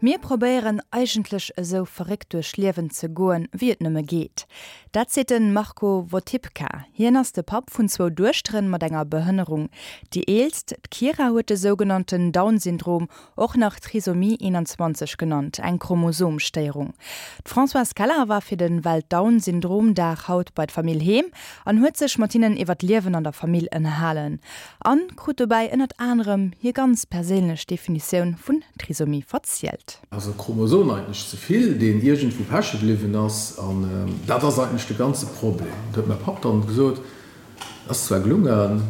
Mir probéieren eigentlech esou verréckt duerch Liewen ze goen, wéi et nëmme geet. Dat seet de Marco Wotipka. Hien ass de Papp vun zwou Duechteren mat enger Behënnerung. Déi eelst, d'Kira, huet de sougenannten Down-Syndrom, och nach Trisomie 21 genannt, eng Chromosomstéierung. D'Françoise Keller war fir de Welt-Down-Syndrom-Dag haut bei d'Famill heem an huet sech mat hinnen iwwer d'Liewen an der Famill ënnerhalen. An krut dobäi ënnert anerem hir ganz perséinlech Definitioun vun Trisomie verzielt. Also e Chromosom eigentlech ze vill, deen iergendwou peche bliwwen ass. An dat ass eigentlech de ganze Problem. Dat huet mäi Papp dann gesot. Ass zwar gelungen,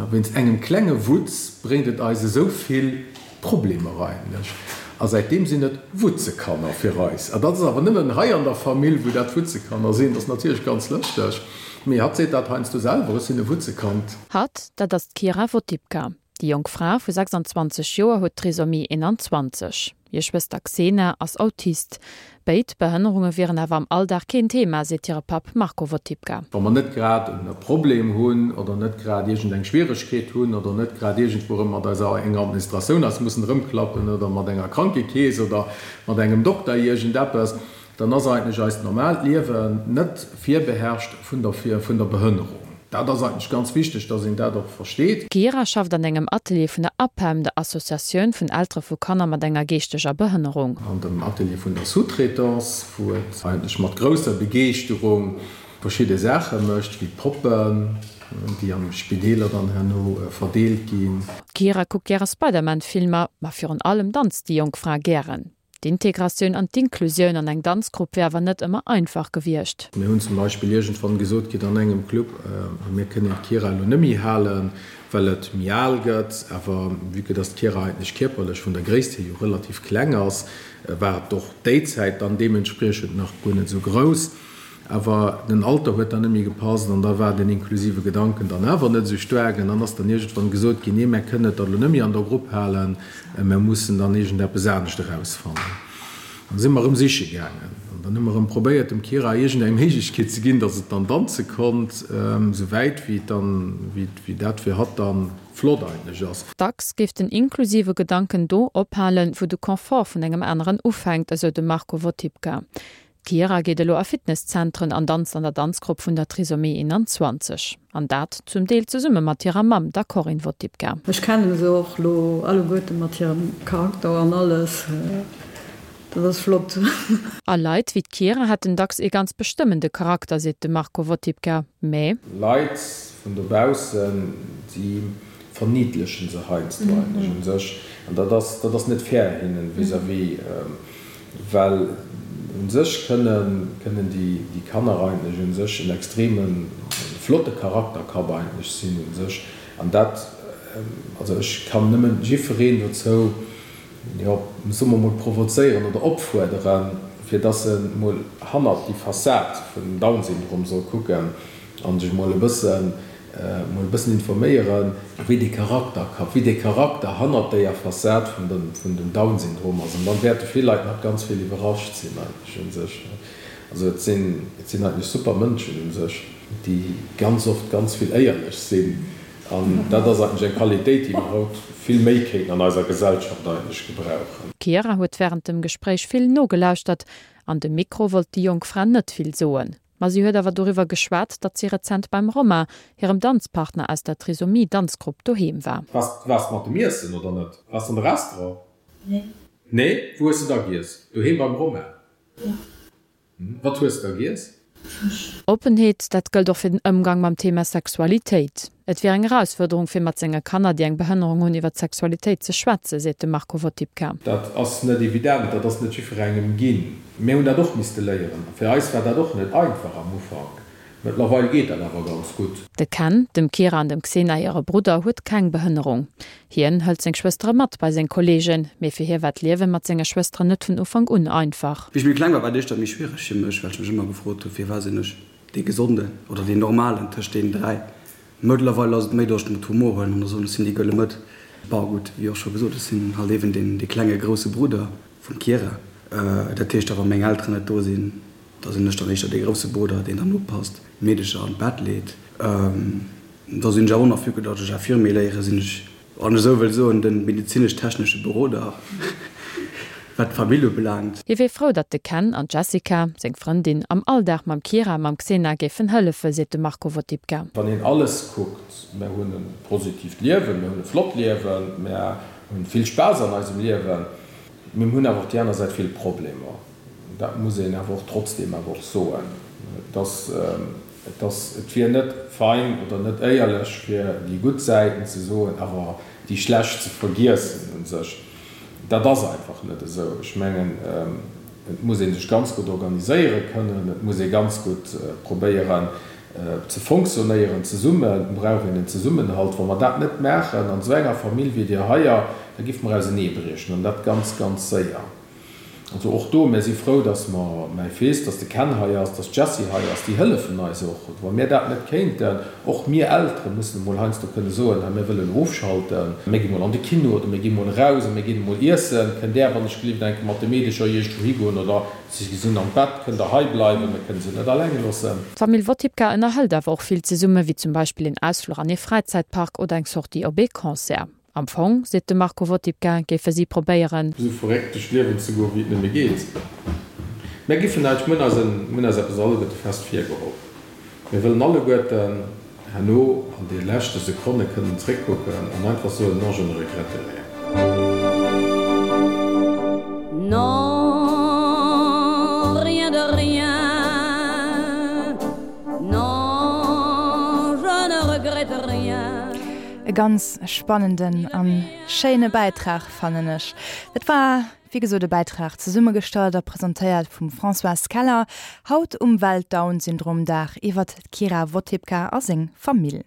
wéinst engem klenge Wutz bréngt et eis esou vill Problemer eigentlech. A säitdeem sinn et Wutzekanner fir eis. A dat ass awer nëmmen hei an der Famill, wou dat Wutzekanner sinn. Dat ass natierlech ganz lëschteg. Mee hatt seet dat heiansdo selwer, Ech sinn e Wutzekand. Hatt, dat ass d'Kira Wotipka. Déi jonk Fra vu 26 Joer huet Trisomie 21. Hir Schwëster Xena ass Autist. Béid Behënnerunge wieren awer am Alldag keen Thema, seet hire Papp Marco Wotipka. Wa mer net grad e Problem hunn oder net grad iergendeng Schwieregkeet hunn oder net grad iergendwou erëm mat eiser enger Administratioun eis mussen erëmklappen oder mat enger Krankekeess oder mat engem Dokter iergendeppes, dann ass eigentlech eist normaalt Liewen net virbeherrscht vun der vun der Behënnerung. Dat ass eigentlech ganz wichteg, dass een dat och versteet. D'Kira schafft an engem Atelier vun der APEM, der Associatioun vun Eltere vu Kanner mat enger geeschteger Behënnerung. An dem Atelier vun der Sous-traitance, wou et eigentlech mat grousser Begeeschterung verschidde Saache mécht, wéi Poppen, déi an de Spideeler dann herno verdeelt ginn. D'Kira kuckt gäre Spider-Man-Filmer, ma virun allem danzt déi jonk Fra gären. D'Integratioun an d'Inklusioun an eng Danzgrupp wier awer net ëmmer einfach gewiescht. Mir hunn zum Beispill iergendwann gesot kritt an engem Club, mir kënnen d'Kira elo net méi halen, well et méi al gëtt. Awer vue que dass d'Kira eigentlech kierperlech vun der Gréisst hier jo relativ kleng ass, war et och déi Zäit dann deementspriechend nach guer net esou grouss. Awer den Alter huet dann net méi gepasst an da war den inklusive Gedanken dann awer net esou staark. An dann ass dann iergendwann gesot ginn, nee, mär kënnen et dann elo net méi an der Grupp halen, mär mussen dann iergendeppes anescht erausfannen. An da si mer erëm siche gaangen an dann hu mer erëm probéiert, dem Kira iergendeng Méiglechkeet ze ginn, datt et dann danze konnt, esou wäit wéi et dann, wéi dat fir hatt dann flott eigentlech ass. Dacks géif den inklusive Gedanken do ophalen, wou de Confort vun engem aneren ufänkt, esou de Marco Wotipka. D'Kira geet elo a Fitnesszentren an danzt an der Danzgrupp vun der Trisomie 21. An dat zum Deel zesumme mat hirer Mamm, der Corinne Wotipka. Ech kennen se och lo alleguerte mat hirem Charakter an alles, dat ass flott. A Leit wéi d'Kira hätten dacks ee ganz bestëmmende Charakter, seet de Marco Wotipka. Mä. Leit vun dobaussen, déi verniddlechen se heiansdo eigentlech u sech. An dat ass, dat ass net fair hinnen vis-à-vis. Well u sech kënnen, kënnen déi, déi Kanner eigentlech u sech en extreme flotte Charakterkapp eigentlech sinn u sech. An dat, also ech kann nëmmen jiffwereen dozou, jo, soe mer mol provozéieren oder opfuerderen, fir dass e mol hannert déi Fassad vun dem Down-Syndrom soll kucken a sech mol e bëssen Mol e bëssen informéieren, wéi dee Charakter ka, wéi dee Charakter hannert déier Fassad vun dem, vun dem Down-Syndrom ass. An dann wäerte vill Leit nach ganz vill iwwerrascht sinn eigentlech un sech. Also et sinn, et sinn eigentlech super Mënschen un sech, déi ganz oft ganz vill éierlech sinn. An dat ass eigentlech eng Qualitéit, déi mer haut vill méi kéinten an eiser Gesellschaft eigentlech gebrauchen. D'Chiara huet wärend dem Gespréich vill nogelauschtert. An de Mikro wollt déi jonk Fra net vill soen. Ma si huet awer doriwwer geschwat, datt si rezent beim Romain, hirem Danzpartner aus der Trisomie-Danzgrupp, doheem war. Waars waars mat dem Iessen oder net? Waars an de Restaurant? Nee. Nee? Wou hues de da giess? Doheem beim Romain? Jo. Wat hues de da giess? Fësch. Oppenheet, dat gëllt och fir den Ëmgang mam Thema Sexualitéit. Et wier eng Erausfuerderung, fir mat senge Kanner, déi eng Behënnerung hunn, iwwer d'Sexualitéit ze schwätzen, seet de Marco Wotipka. Dat ass net evident, dat ass net jiddwerengem ginn. Mir hunn dat och misste léieren. Fir eis war dat och net einfach am Ufank. Mëttlerweil geet dat awer ganz gutt. De Ken, dem Kira an dem Xena hire Brudder, huet keng Behënnerung. Hien hëlt seng Schwëstere mat bei seng Kolleegen, mee fir hie war d'Liewe mat senge Schwësteren net vun Ufank un einfach. Wéi ech méi kleng war, war et éischter méi schwiereg fir mech, well ech mech ëmmer gefrot hunn, firwat sinn ech dee Gesonden oder deen Normalen tëscht deenen 3. Mëttlerweil ass et méi, datt ech et mat Humor huelen an da soen, ech sinn déi gëlle Mëtt. Bon, gutt, wéi och scho gesot, ech sinn halt eeben deen, dee klenge grousse Brudder vum Kira. Dat heescht da, wa meng Elteren net do sinn, da sinn ech dann éischter dee grousse Brudder, deen dann oppasst, d'Meedecher an d'Bett leet. Da sinn ech awer och nach, vue que datt ech Infirmier léiere, sinn ech, wann ech esou wëll soen, de medezinesch-technesche Beroder. Wat d'Famill ubelaangt. Hie wier frou, datt de Ken an d'Jessica, seng Frëndin, am Alldag mam Kira a mam Xena géifen hëllefen, seet de Marco Votipka. Wann een alles kuckt, mär hunn e positiivt Liewen, mär hunn e flott Liewen, mär hunn vill Spaass an eisem Liewen, mee mir hunn awer och déi aner Säit vill Problemer. Dat muss een awer och trotzdeem awer och soen. Et ass, et ass, et wier net fein oder net éierlech fir déi gutt Säiten ze soen, awer déi schlecht ze vergiessen u sech. Dat ass einfach net esou. Ech mengen, et muss ee sech ganz gutt organiséiere kënnen, et muss ee ganz gutt probéieren ze fonctionnéieren zesummen, et brauch een en Zesummenhalt. Wa mer dat net maachen an esou enger Famill wéi där heier, da géife mer auseneebriechen an dat ganz, ganz séier. Also och do, mir si frou, dass mer, mäi Fils, dass de Ken hei ass, dass d'Jessie hei ass, déi hëllefen eis och. Wa mir dat net kéinten, och mir Eltere mussen emol heiansdo kënne soen, hei mir wëllen ofschalten, mir gi mol an de Kino oder mir gi mol eraus a mir ginn emol iessen, kënnt Där wann ech gelift eng Kéier mat de Meedecher iergendwou higoen oder si sinn am Bett, kënnt Der hei bleiwen, mir kënne se net alleng loossen. D'Famill Wotipka ënnerhëlt awer och vill zesumme, wéi zum Beispill een Ausfluch an ee Fräizäitpark oder eng Sortie op ee Concert. Am Fong, seet de Marco Wotipka, géife si probéieren. Esou verréckt duerch d'Liewen ze goen, wéi et nëmme geet. Mär giffen eis, mir hunn eis en, mir hunn eis eppes alleguerte fest virgeholl, Mir wëllen alleguerten herno an de leschte Sekonne kënnen zréckkucken an einfach soen, Non, je ne regrette rien. Non, rien de rien, non, je ne regrette rien. E ganz spannenden an schéine Bäitrag fannen ech. Dat war wéi gesot e Bäitrag zesummegestallt a presentéiert vum Françoise Keller, haut um Welt-Down-Syndrom-Dag iwwert d'Kira Wotipka a seng Famill.